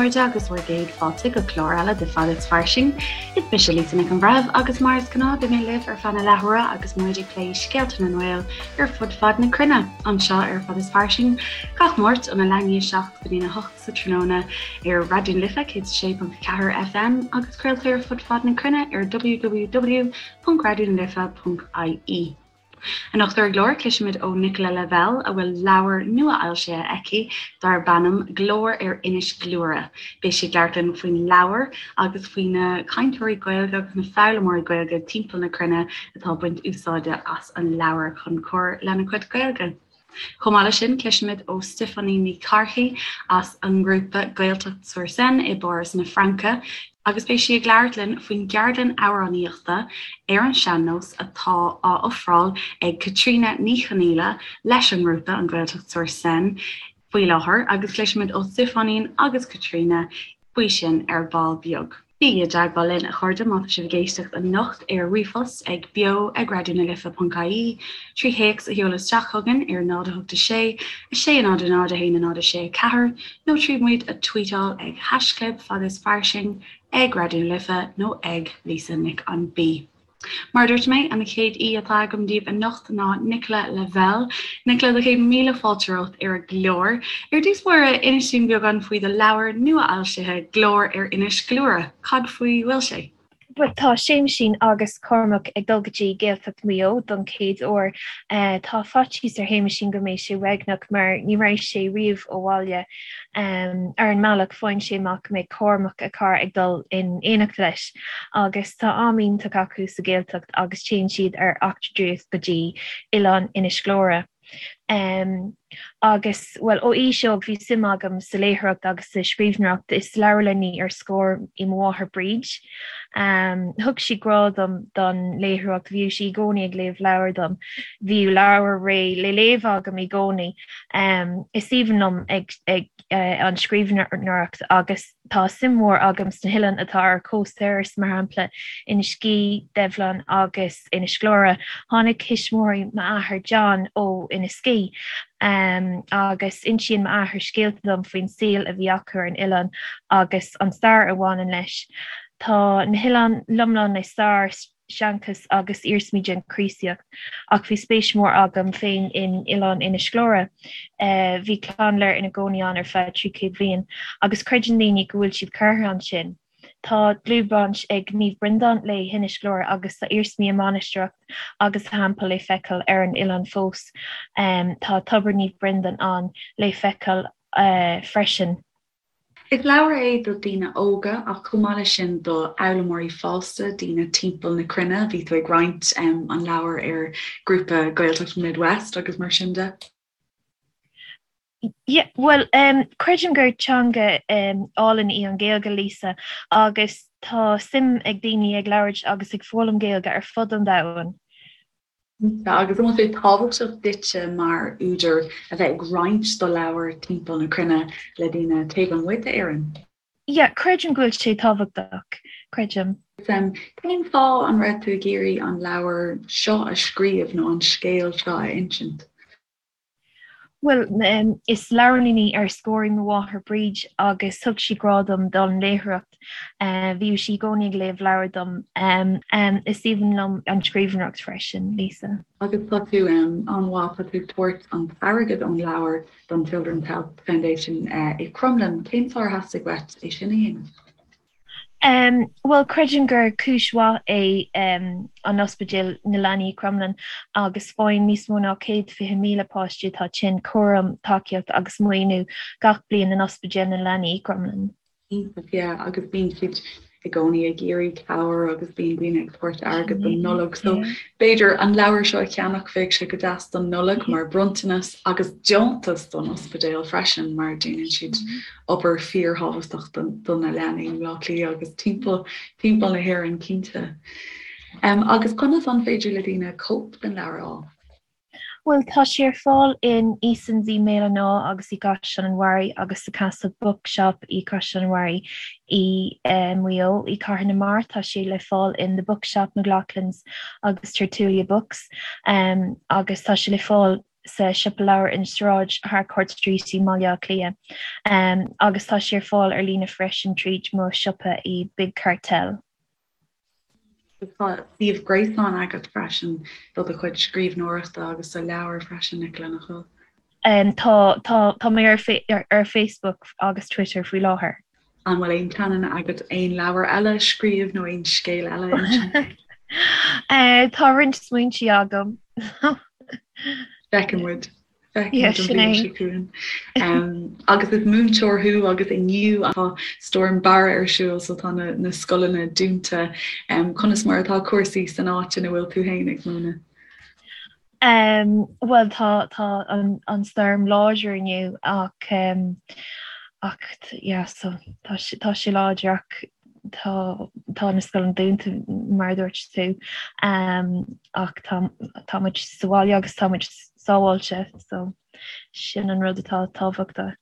chairde, agus bhur gcéad fáilte go clár eile de Fad is Fairsing. Is mise Lisa Nic an Bhreithimh agus mar is gnáth beidh mé libh ar feadh na leathuaire agus muid ag plé scéalta na nGael ar fud fad na cruinne, anseo ar Fad is Fairsing, gach Máirt óna leath i ndiaidh 7 go dtína 8 sa tráthnóna ar Raidió na Life 106.4 FM agus craoltar ar fud fad na cruinne ar www.raidionalife.ie. Anocht ar an gclár, cloisfimid ó Nicola Lavelle a bhfuil leabhar nua-fhoilsithe aici darb ainm Glór ar Inis Gluaire. Beidh sí ag labhairt linn faoin leabhar agus faoi na cainteoirí Gaeilge agus na foghlaimeoirí Gaeilge timpeall na cruinne atá ag baint úsáide as an leabhar chun cur lena gcuid Gaeilge. Chomh maith leis sin, cloisfimid ó Stiofáinín Ní Chárthaigh as an ngrúpa Gaeltacht sur Seine i bPáras na Fraince agus beidh sí ag labhairt linn faoin gceardlann amhránaíochta ar an sean-nós atá á ofráil ag Caitríona Ní Chonaola leis an ngrúpa, an Gaeltacht sur Seine, faoi láthair agus cloisfimid ó Stiofáinín agus Caitríona faoi sin ar ball beag. Bígí i dteagmháil linn, a chairde, má tá sibh ag éisteacht anocht ar ríomhphost ag beo ag raidionalife.ie, trí théacs a sheoladh isteach chugainn ar 0 8 6 6 0 0 1 0 6 4 nó trí muid a tweetáil ag haischlib fad is fairsing, ag Raidió na Life nó ag Lisa Nic an B. Mar a dúirt mé, an chéad aoi atá agam daoibh anocht ná Nicola Lavelle. Nicola, do chéad míle fáilte romhat ar an gclár. Ar dtús báire, inis dúinn beagán faoi do leabhar nua-fhoilsithe, Glór ar Inis Gluaire. Cad faoi bhfuil sé? Bhuel, tá Séamaisín agus Cormac ag dul go dtí Gaeltacht Mhaigh Eo don chéad uair. Tá faitíos ar Shéamaisín go mbeidh sé uaigneach mar ní raibh sé riamh ó bhaile. Ar an mbealach, faigheann sé amach go mbeidh Cormac, a chara, ag dul in éineacht leis agus tá am iontach acu sa Ghaeltacht agus téann siad ar eachtra draíochta go dtí oileán Inis Gluaire. Agus, bhuel, ó aois óg bhí suim agam sa léitheoireacht agus sa scríbhneoireacht. Is leabharlannaí ar scor í mo mháthair Bríd. Thug sí grá dom don léitheoireacht, bhíodh sí i gcónaí ag léamh leabhar dom. Bhíodh leabhar réidh le léamh agam i gcónaí. Is aoibhinn liom ag an scríbhneoireacht agus tá suim mhór agam sna hoileáin atá ar chósta Iorrais, mar shampla Inis Gí, Duibhleann agus Inis Gluaire. Tháinig tuismitheoirí m'athar John ó Inis Gí agus insíonn m'athair scéalta dom faoin saol a bhí acu ar an oileán agus an stair a bhaineann leis. Tá na hoileáin lomlán le stair, seanchas agus iarsmaí den Chríostaíocht, ach bhí spéis mhór agam féin in Oileán Inis Gluaire. Bhí clann Lir ina gcónaí ann ar feadh 300 bliain, agus creideann daoine go bhfuil siad curtha ansin. Tá dlúthbhaint ag Naomh Breandán le hInis Gluaire agus tá iarsmaí a mainistreach agus a theampall le feiceáil ar an oileán fós. Tá Tobar Naomh Breandán ann le feiceáil freisin. Is leabhar é do daoine óga ach chomh maith leis sin do fhoghlaimeoirí fásta, daoine timpeall na cruinne. Bhí tú ag roinnt an leabhair ar grúpa Gaeltacht Midwest agus mar sin de. Yeah, bhuel, creidim gur teanga álainn í an Ghaeilge, Lisa, agus tá suim ag daoine ag labhairt agus ag foghlaim Gaeilge ar fud an domhain. Agus an bhfuil sé tábhachtach duitse mar údar a bheith ag roinnt do leabhar timpeall na cruinne le daoine taobh amuigh d'Éirinn? Yeah, creidim go bhfuil sé tábhachtach, creidim. Cén fáth an raibh tú ag iarraidh an leabhar seo a scríobh nó an scéal seo a insint? Bhuel, is leabharlannaí ar scor í mo mháthair Bríd agus thug sí grá dom don léitheoireacht. Bhíodh sí i gcónaí ag léamh leabhar dom. Is aoibhinn liom an scríbhneoireacht freisin, Lisa. Agus tá tú an-mhaith, tá tú ag tabhairt an t-airgead ón leabhar don Children's Health Foundation i Crumlin. Cén fáth ar theastaigh uait é sin a dhéanamh? Bhuel, creidim gur cúis mhaith é an Ospidéal na Leanaí i Crumlin agus faigheann níos mó ná 120,000 páiste atá tinn cúram, tacaíocht agus maoiniú gach bliain in Ospidéal na Leanaí i gCrumlin. Iontach, yeah, agus bíonn siad i gcónaí ag iarraidh cabhair agus bíonn daoine ag tabhairt airgead don Nollaig. So b'fhéidir an leabhar seo a cheannach, bheadh sé go deas don Nollaig mar bronntanas agus deontas don ospidéal freisin mar déanann siad obair fíorthábhachtach do na leanaí i mBleá Cliath agus timpeall timpeall na hÉireann cinnte. Agus conas an féidir le daoine cóip den leabhar a fháil? Bhuel, tá sé ar fáil in Easons i mBéal an Átha agus i gCaisleán an Bharraigh agus sa Castle Bookshop i gCaisleán an Bharraigh i Maigh Eo. I Cathair na Mart tá sé le fáil in The Bookshop, McLoughlin's agus Tertulia Books agus tá sé le fáil. sa siopa leabhar in Sráid Harcourt Street i mBaile Átha Cliath agus tá sé ar fáil ar líne freisin tríd mo siopa i Big Cartel. Tá suíomh gréasáin agat freisin do do chuid scríbhneoireachta agus do leabhair freisin, Nicola, nach bhfuil? Tá, tá, tá mé ar ar Facebook agus Twitter faoi láthair. An bhfuil aon pleananna agat aon leabhar eile a scríobh nó aon scéal eile a insint? Tá roinnt smaointe agam. Feicfidh muid. Feicfidh muid an bhliain seo chugainn. Agus is múinteoir thú agus inniu tá Storm Barra ar siúl so tá na na scoileanna dúnta. Conas mar atá cúrsaí san áit ina bhfuil tú féin ag múineadh? Bhuel tá tá an an stoirm láidir inniu ach ach yeah so tá sé tá sé láidir ach tá tá na scoileanna dúnta mar a dúirt tú ach tá tá muid sa bhaile agus tá muid sábháilte so sin an rud atá tábhachtach.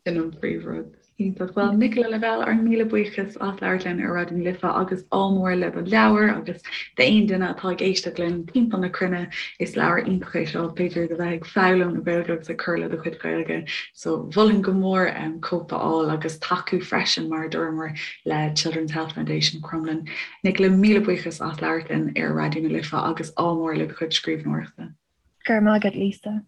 Sin an príomhrud. Iontach. Bhuel, Nicola Lavelle, ár míle buíochas as labhairt linn ar Raidió na Life agus ádh mór le do leabhar agus d'aon duine atá ag éisteacht linn timpeall na cruinne, is leabhar iontach é seo, b'fhéidir do bheith ag foghlaim na Gaeilge agus ag cur le do chuid Gaeilge. So mholfainn go mór cóip a fháil agus tacú freisin mar a dúramar le Children's Health Foundation Crumlin. Nicola, míle buíochas as labhairt linn ar Raidió na Life agus ádh mór le do chuid scríbhneoireachta. Go raibh maith agat, Lisa.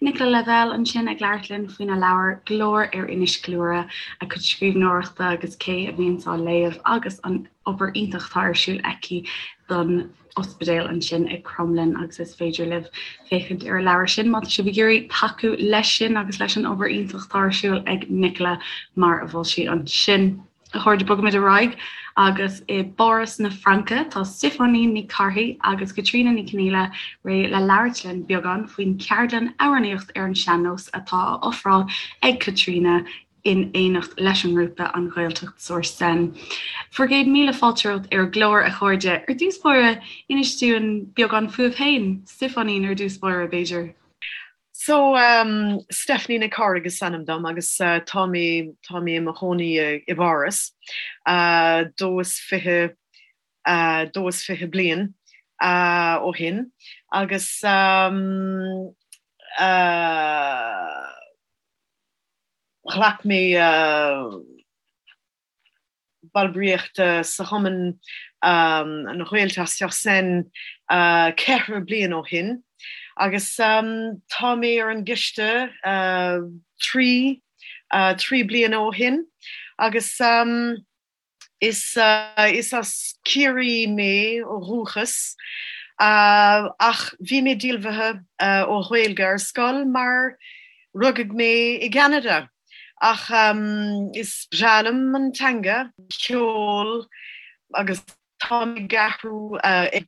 Nicola Lavelle ansin ag labhairt linn faoina leabhar Glór ar Inis Gluaire, a cuid scríbhneoireachta agus cé a bhíonns á léamh agus an obair iontach atá ar siúl aici don ospidéal ansin i Crumlin agus is féidir libh féachaint ar an leabhar sin má tá sibh ag iarraidh tacú leis sin agus leis an obair iontach atá ar siúl ag Nicola mar a mhol sí ansin. A chairde, bogaimid ar aghaidh agus i bPáras na Fraince tá Stiofáinín Ní Charthaigh agus Caitríona Ní Chonghaile réidh le labhairt linn beagán faoin cheardlann amhránaíocht ar an sean-nós atá á ofráil ag Caitríona in éineacht leis an ngrúpa An Ghaeltacht sur Seine. Bhur gcéad míle fáilte romhat ar an gclár, a chairde. Ar dtús báire, inis dúinn beagán fúibh féin. Stiofáinín ar dtús báire, b'fhéidir. So, um, Stephanie Nic Cárthaigh is ainm dom agus uh, tá mé tá mé i mo chónaí i bPáras uh, 22 uh, 22 bliain uh, ó shin agus um, uh, ghlac mé uh, ballraíocht sa chumann An Ghaeltacht sur Seine 4 bliain ó shin agus tá mé ar an gcoiste 3 3 bliana ó shin agus is is as Ciarraí mé ó dhúchas ach bhí mé díolmhaithe ó Ghaeilge ar scoil mar rugadh mé i gCeanada. Ach is breá liom an teanga, ceol agus tá mé ag athrú, ag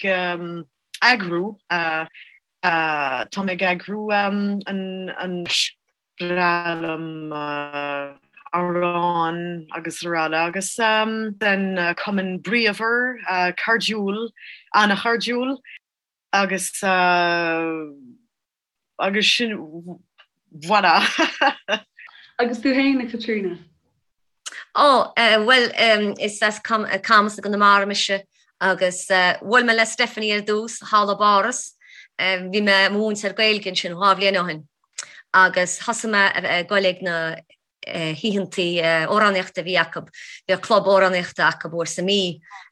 eagrú, tá mé ag eagrú an breá liom amhráin agus araile agus an cumann bríomhar, cairdiúil, an-chairdiúil agus. Agus sin, voilà! Agus tú féin, a Chaitríona? Ó, bhuel, is as Camas i gConamara mise agus bhuail mé le Stephanie ar dtús thall i bPáras. Bhí mé i mo mhúinteoir Gaeilge ansin dhá bhliain ó shin agus thosaigh mé ag goil ag na hoícheantaí amhránaíochta a bhí acu. Bhíodh club amhránaíochta acu uair sa mí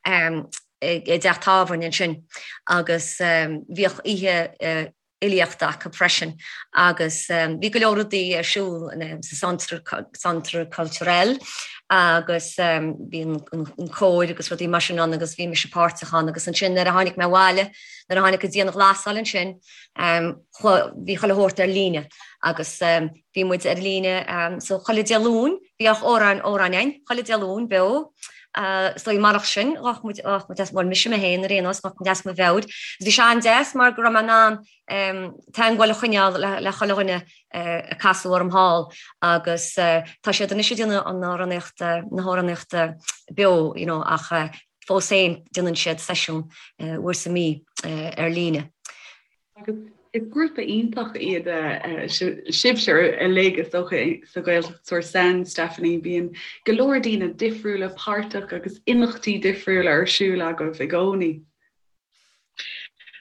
i dteach tábhairne ansin agus bhíodh oíche fhilíochta acu freisin agus bhí go leor rudaí ar siúl sa Centre Culturel agus bhí an cór agus rudaí mar sin ann agus bhí mise páirteach ann agus ansin nuair a tháinig mé abhaile, nuair a tháinig an dianghlasáil ansin, bhí chuile shórt ar líne agus bhí muid ar líne so chuile Dé Luain bhíodh amhráin amhráin againn chuile Dé Luain beo so marach sin ghabh muid ghabh muid as bhuel mise mé féin ar aon nós ghabh muid as mo mheabhair. Bhí sé an-deas mar go raibh mé in ann teagmháil a choinneáil le le chuile dhuine a casadh orm thall agus tá siad anois ag déanamh an amhránaíocht na hamhránaíochta beo you know ach fós féin déanann siad seisiún uair sa mí ar líne. Agus is grúpa iontach iad sibhse uilig is dócha sa Ghaeltacht sur Seine, Stephanie, bíonn go leor daoine difriúla páirteach agus imeachtaí difriúla ar siúl agaibh i gcónaí.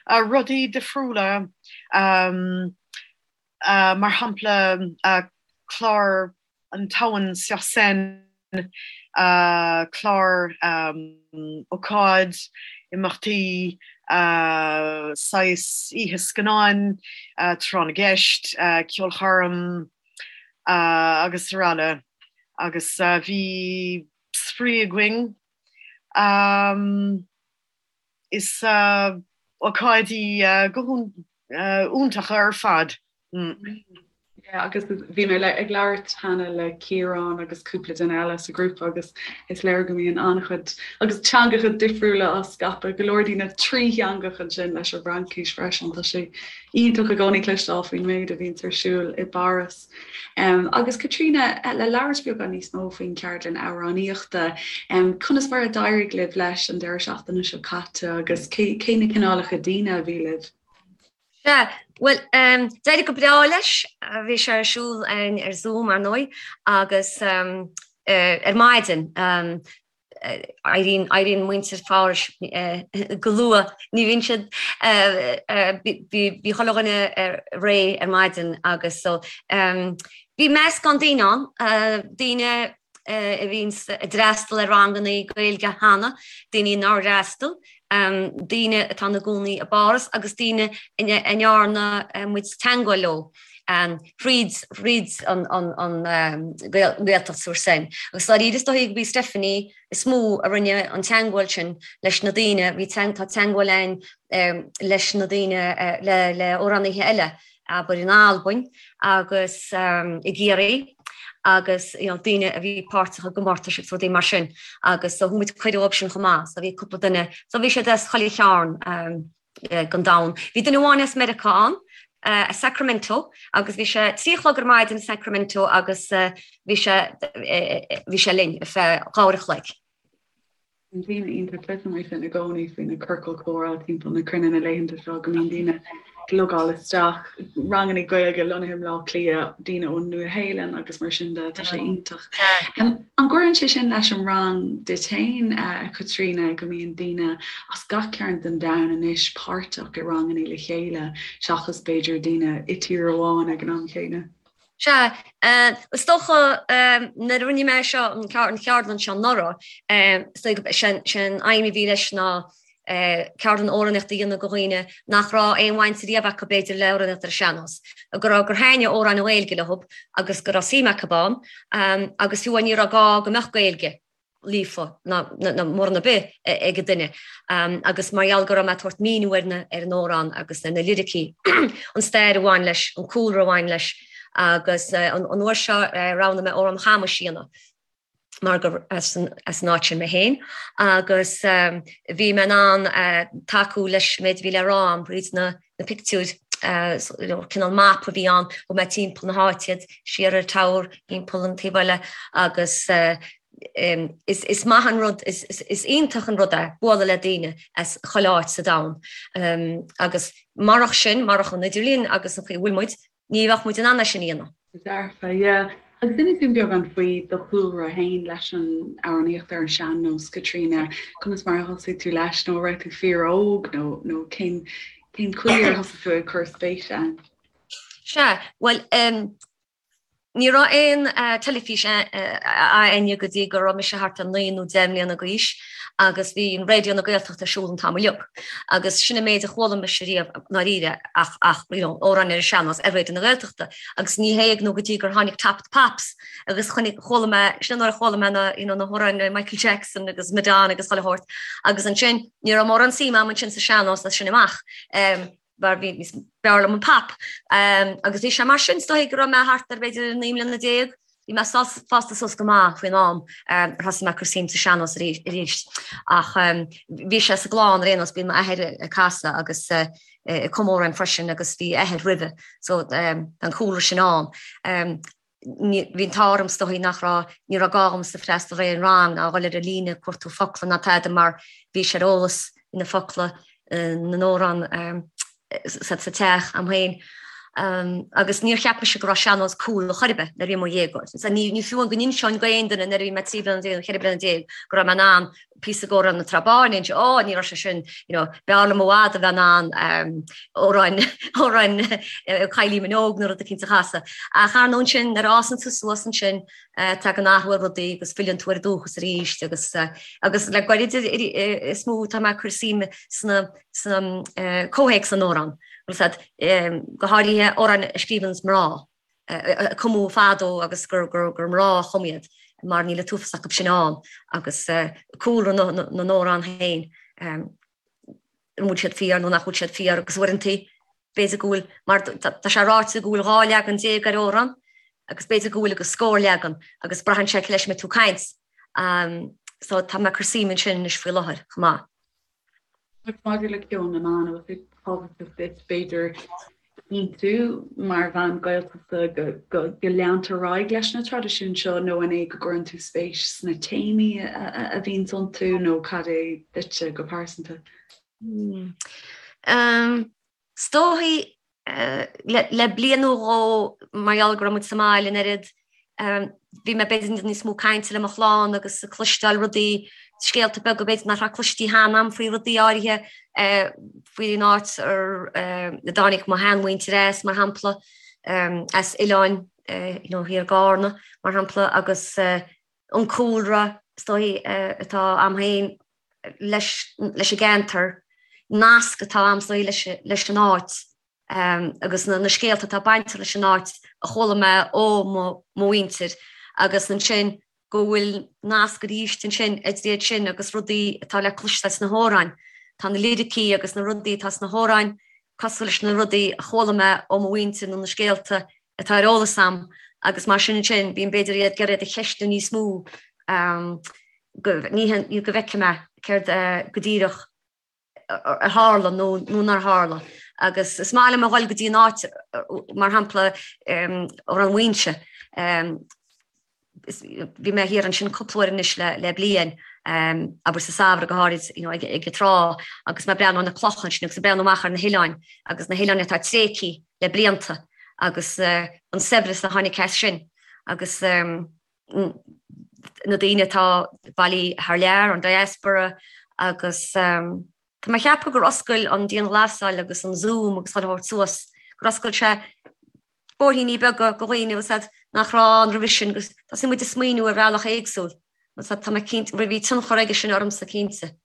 Rudaí difriúla. Mar shampla, clár an Tamhan sur Seine, clár ócáid, imeachtaí, saghas oíche scannáin, tráth na gceist, ceolchoirm agus araile Agus bhí spraoi againn. Is ócáidí go hiontacha ar fad. Yeah, agus bhí mé ag labhairt cheana le Ciarán agus cúpla duine eile sa ghrúpa agus is léir go mbíonn an-chuid agus teangacha difriúla á scaipeadh, go leor daoine trítheangach ansin leis an bhFraincis freisin. Tá sé iontach i gcónaí cloisteáil faoin méid a bhíonns ar siúl i bPáras. Agus Caitríona, le labhairt beagán níos mó faoin cheardlann amhránaíochta, conas mar a d'éirigh libh leis an deireadh seachtaine seo caite agus cé cé na cineálacha daoine a bhí libh? Sea, bhuel, d'éirigh go breá leis. Bhí sé ar siúl ar Zoom, ar ndóigh, agus ar maidin. Éiríonn, éiríonn muintir Phárais go luath. Ní bhíonn siad, bhí, bhí chuile dhuine réidh ar maidin agus so bhí meascán daoine ann, daoine a bhíonn ag d'fhreastal ar ranganna Gaeilge cheana, daoine nár fhreastal, daoine atá ina gcónaí i bPáras agus daoine a ndearna muid teagmháil leo thríd thríd an Ghaeltacht sur Seine. Agus dáiríre is dóigh gurb í Stephanie is mó a rinne an teagmháil sin leis na daoine, bhí tá teagmháil againn leis na daoine le amhránaithe eile abair in Albain agus i gCiarraí agus you know daoine a bhí páirteach i gcomórtais agus rudaí mar sin agus so thug muid cuireadh dóibh sin chomh maith so bhí cúpla duine so bhí siad as chuile chearn den domhan. Bhí duine amháin as Meiriceá ann, as Sacramento agus bhí sé 3 a chlog ar maidin i Sacramento agus bhí sé bhí sé linn ar feadh 2 uair a chloig. Bíonn daoine iontach cloisim é sin i gcónaí faoi na ciorcail chomhrá timpeall na cruinne na laethanta seo go mbíonn daoine ag logáil isteach, ranganna Gaeilge lonnaithe i mBleá Cliath, daoine ón Nua-Shéalainn agus mar sin de, tá sé iontach. An gcuireann sé sin leis an rang duit féin, a Chaitríona, go mbíonn daoine as gach cearn den domhan anois páirteach i ranganna le chéile seachas b'fhéidir daoine i tír amháin ag an am chéanna? Sea, is dócha nuair a rinne mé seo, an cheardlann seo anuraidh, is dóigh gurb é an aidhm a bhí leis ná ceardlann amhránaíochta a dhéanamh do dhaoine nach raibh aon bhaint riamh acu b'fhéidir le amhránaíocht ar an sean-nós, go raibh, gur thaitnigh amhráin Ghaeilge leo agus go raibh suim acu ann agus fiú ní raibh gá go mbeadh Gaeilge. líofa ná mórán ar bith ag an duine agus mar gheall go raibh mé ag tabhairt míniú ar na ar an amhrán agus ar na liricí, an stair a bhain leis, an cúlra a bhain leis agus an uair seo roghnaigh mé amhrán Chamais a dhéanamh mar gur as an as an áit sin mé féin agus bhí mé in ann tacú leis an méid a bhí le rá agam thríd na na pictiúir, cineál map a bhí ann, thug mé timpeall na háite iad, siar ar tower, timpeall an taobh eile agus is maith an rud, is iontach an rud é bualadh le daoine as chuile áit sa domhan agus marach sin, marach an idirlíon agus an chaoi a bhfuil muid, ní bheadh muid in ann é sin a dhéanamh. Dearfa, yeah. Agus inis dúinn beagán faoi do chúlra féin leis an amhránaíocht ar an sean-nós, Caitríona. Conas mar a thosaigh tú leis, nó an raibh tú fíor-óg, nó nó cén cén chaoi ar thosaigh tú ag cur spéise ann? Sea, bhuel, em, ní raibh aon teilifís a'inne go dtí go raibh mise thart ar 9 nó 10 mbliana d'aois agus bhí an Raidió na Gaeltachta ar siúl an t-am uilig. Agus sin an méid a chuala mise riamh ndáiríre ach ach you know amhráin ar an sean-nós ar Raidió na Gaeltachta agus ní hé nó go dtí gur tháinig Top of the Pops agus chonaic chuala mé sin nuair a chuala mé na you know na hamhráin le Michael Jackson agus Madonna agus chuile shórt agus ansin ní raibh mórán suim a'm ansin sa sean-nós as sin amach um, mar bhí níos b'fhearr liom an pop. Um, agus bhí sé mar sin is dóigh go raibh mé thart ar b'fhéidir 19 mbliana Bhí mé fásta suas go maith faoin am ar thosaigh mé ag cur suim sa sean-nós arís. Ach bhí sé sa gclann ar aon nós, bíonn m'athair ag casadh agus ag cumadh amhráin freisin agus bhí a athair roimhe so tá an cúlra sin ann. Bhí an t-ádh orm is dóigh nach raibh, ní raibh gá dhomsa freastal ar aon rang ná dhul ar an líne ag cuartú focla ná tada mar bhí sé ar eolas na focla na n-amhrán sa teach a'm féin. Agus níor cheap mise go raibh sean-nós cool chor ar bith nuair a bhí mé i mo dhéagóir. Ní ní fiú amháin go n-inseoinn d'aon duine nuair a bhí mé 13 bliana nó 14 bliana go raibh mé in ann píosa d'Amhrán na Trá Báine a inse, ó ní raibh sé sin, you know, b'fhearr liom i bhfad a bheith in ann amhrán amhrán Kylie Minogue nó rud eicínt a chasadh. Ach ar ndóigh ansin nuair a fhásann tú suas ansin tagann athrú ar rudaí agus filleann tú ar an dúchas arís agus agus le goirid is mó tá mé ag cur suime sna sna comhthéacs na n-amhrán, go háirithe amhráin a scríobhann mná, a cumadh fadó agus gur mná a chum iad, mar níl an t-uafás acu sin ann, agus cúlra na n-amhrán féin, an bhfuil siad fíor nó nach bhfuil siad fíor, agus uaireanta b'fhéidir go bhfuil, mar tá sé ráite go bhfuil 12 leagan ar amhrán, agus b'fhéidir go bhfuil agus scór leagan, agus braitheann sé cé leis a mbeidh tú ag caint. So tá mé ag cur suim ansin anois faoi láthair chomh maith. Agus maidir le ceol na mban, an bhfuil sé tábhachtach duit, b'fhéidir, cinntiú mar bhean Gaeltachta go go leantar ar aghaidh leis na traidisiúin seo nó an é go gcuireann tú spéis sna téamaí a bhíonns iontu nó cad é duitse go pearsanta? Is dóichí le bliain nó dhó mar gheall go raibh muid sa mbaile an oiread, bhí mé b'fhéidir níos mó cainte le mo chlann agus ag cloisteáil rudaí, scéalta beaga b'fhéidir nach raibh cloistí cheana a'm faoi rudaí áirithe, faoin áit ar a dtáinig mo sheanmhuintir as, mar shampla, as oileáin you know thiar i gCarna, mar shampla, agus an cúlra is dóichí atá a'm féin leis an gceantar, nasc atá a'm is dóichí leis an áit agus na scéalta atá bainteach leis an áit a chuala mé ó mo mhuintir agus ansin go bhfuil nasc arís ansin idir iad sin agus rudaí atá le cloisteáil sna hamhráin. Tá na liricí agus na rudaí atá sna hamhráin cosúil leis na rudaí a chuala mé ó mo mhuintir nó na scéalta atá ar eolas a'm agus mar sin ansin bím b'fhéidir iad ag iarraidh iad a cheistiú níos mó go ní go bhfeicfidh mé céard go díreach a tharla nó nó nár tharla. Agus is maith liom a dhul go dtí an áit mar shampla Amhrán Mhaínse. Bhí mé thiar ansin cúpla uair anois le le bliain, abair sa samhradh go háirid you know ag ag an trá agus mé ag breathnú ar na clocha ansin agus ag breathnú amach ar na hoileáin agus na hoileáin atá tréigthe le blianta agus an saibhreas a tháinig as sin agus na daoine atá bailithe thar lear, an diaspora agus tá mé ag ceapadh gur oscail an dianghlasáil agus an Zoom agus chuile shórt suas, gur oscail sé bóithríní beaga do dhaoine agus iad nach raibh ann roimhe sin agus thosaigh muid ag smaoineamh ar bhealach éagsúil agus tá mé cinnte, bhí tionchar aige sin ormsa cinnte.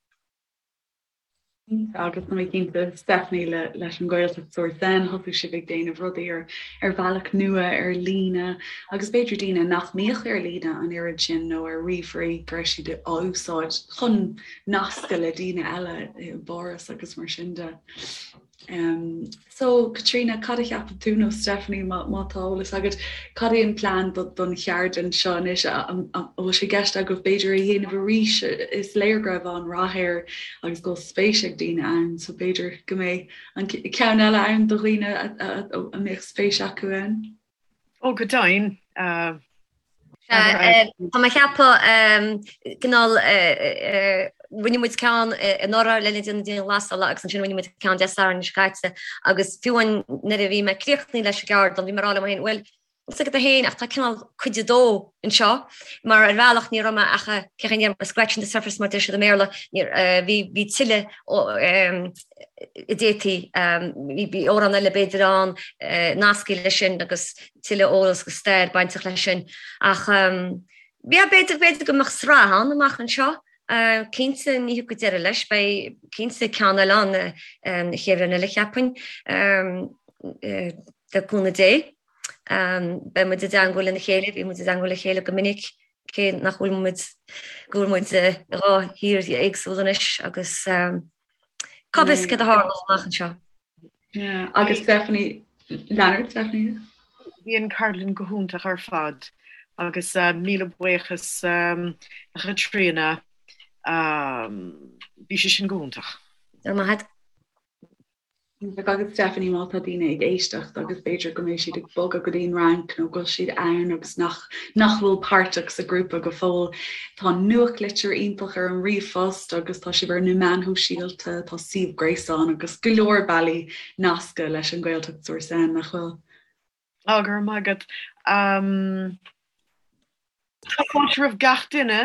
Agus tá mé cinnte Stephanie le leis an Ghaeltacht sur Seine thosaigh sibh ag déanamh rudaí ar ar bhealach nua ar líne agus b'fhéidir daoine nach mbíodh ar líne an oiread sin nó ar ríomhairí go raibh siad á úsáid chun nascadh le daoine eile i bPáras agus mar sin de. Um, so Caitríona, cad a cheapann tú nó Stephanie má, má tá eolas agat, cad é an plean do, don cheardlann seo anois an bhfuil sé i gceist agaibh b'fhéidir é a dhéanamh arís is léir go raibh an-rath air agus go bhfuil spéis ag daoine ann, so b'fhéidir go mbeidh an ceann eile ann do dhaoine a, a, a, a mbeadh spéis acu ann. Ó go deimhin. Uh, Tá mé ag ceapadh cineál rinne muid ceann anuraidh le linn na dianghlasála agus ansin rinne muid ceann Dé Sathairn seo caite agus fiú amháin nuair a bhí mé críochnaithe leis an gceardlann bhí mé ag rá liom féin bhuel níl a fhios agat féin ach tá cineál cuid a dó anseo mar ar bhealach ní raibh mé ach cé chaoi a scratching the surface mar deir siad i mBéarla bhí bhí tuilleadh a d'fhéadfaí bhí amhrán eile b'fhéidir ann nasctha leis sin agus tuilleadh eolas agus stair bainteach leis sin. Ach yeah, b'fhéidir, b'fhéidir go mbeadh sraith ann amach anseo. Cinnte ní thiocfaidh deireadh leis, beidh cinnte ceann eile ann an chéad bhliain eile cheapfainn, le cúnamh Dé. Beidh muid i dteangmháil lena chéile, bhí muid i dteangmháil le chéile go minic, cé nach bhfuil muid, go bhfuil muid i dhá thír éagsúil anois agus cá bhfios céard a tharlós amach anseo. Yeah, agus Stephanie, Leonard, Stephanie? Bhí an cheardlann go hiontach ar fad agus míle buíochas a Chaitríona, bhí sé sin go hiontach. Go raibh maith agat. Iontach agus Stephanie má tá daoine ag éisteacht agus b'fhéidir go mbeidh siad ag bogadh go dtí an Fhrainc nó go bhfuil siad ann agus nach nach bhfuil páirteach sa ghrúpa go fóill, tá nuachtlitir iontach ar an ríomhphost agus tá sibh ar na meáin shóisialta, tá suíomh gréasáin agus go leor bealaí nascadh leis an Gaeltacht sur Seine, nach bhfuil? Á, go raibh maith agat. Tá fáilte roimh gach duine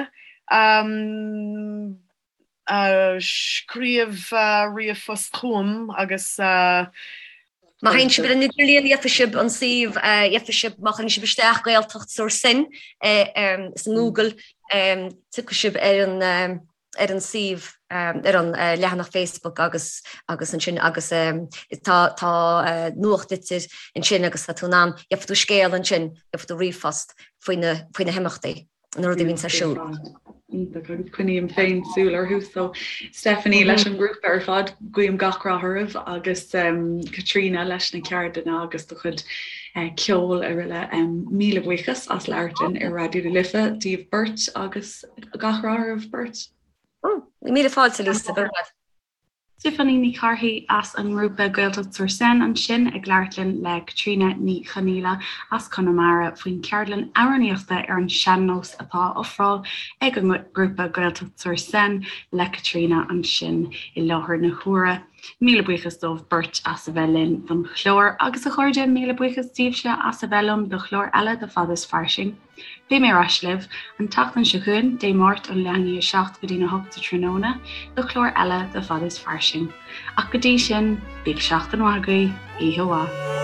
scríobh ríomhphost chugam agus. Má théann sibh ar an idirlíon, gheobhaidh sibh an suíomh, gheobhaidh sibh, má chuireann sibh isteach Gaeltacht sur Seine sa nGoogle, tiocfaidh sibh ar an ar an suíomh, ar an leathanach Facebook agus agus ansin agus tá tá nuachtlitir ansin agus tá tú in ann, gheobhaidh tú scéal ansin, gheobhaidh tú ríomhphost faoi na faoi na himeachtaí, na rudaí a bhíonns ar siúl. Iontach agus coinním féin súil orthu so Stephanie leis an ngrúpa ar fad guím gach rath oraibh agus Caitríona leis na ceardlanna agus do chuid ceoil araile. Míle buíochas as labhairt linn ar Raidió na Life daoibh beirt agus Gach rath oraibh beirt. Míle fáilte, Lisa. Go raibh maith. Stephanie Ní Chárthaigh as an ngrúpa Gaeltacht sur Seine ansin ag labhairt linn le Caitríona Ní Chonaola as Conamara faoin cheardlann amhránaíochta ar an sean-nós atá á ofráil ag an ngrúpa Gaeltacht sur Seine le Caitríona ansin i láthair na huaire. Míle buíochas dóibh beirt as a bheith linn don chlár agus a chairde, míle buíochas daoibhse as a bheith liom do chlár eile de Fada is Fairsing. Beidh mé ar ais libh an tseachtain seo chugainn, Dé Máirt ón leath i ndiaidh 7 go dtí'n 8 sa tráthnóna, do chlár eile de Fada is Fairsing. Ach go dtí sin, bíodh seachtain mhaith agaibh, oíche mhaith.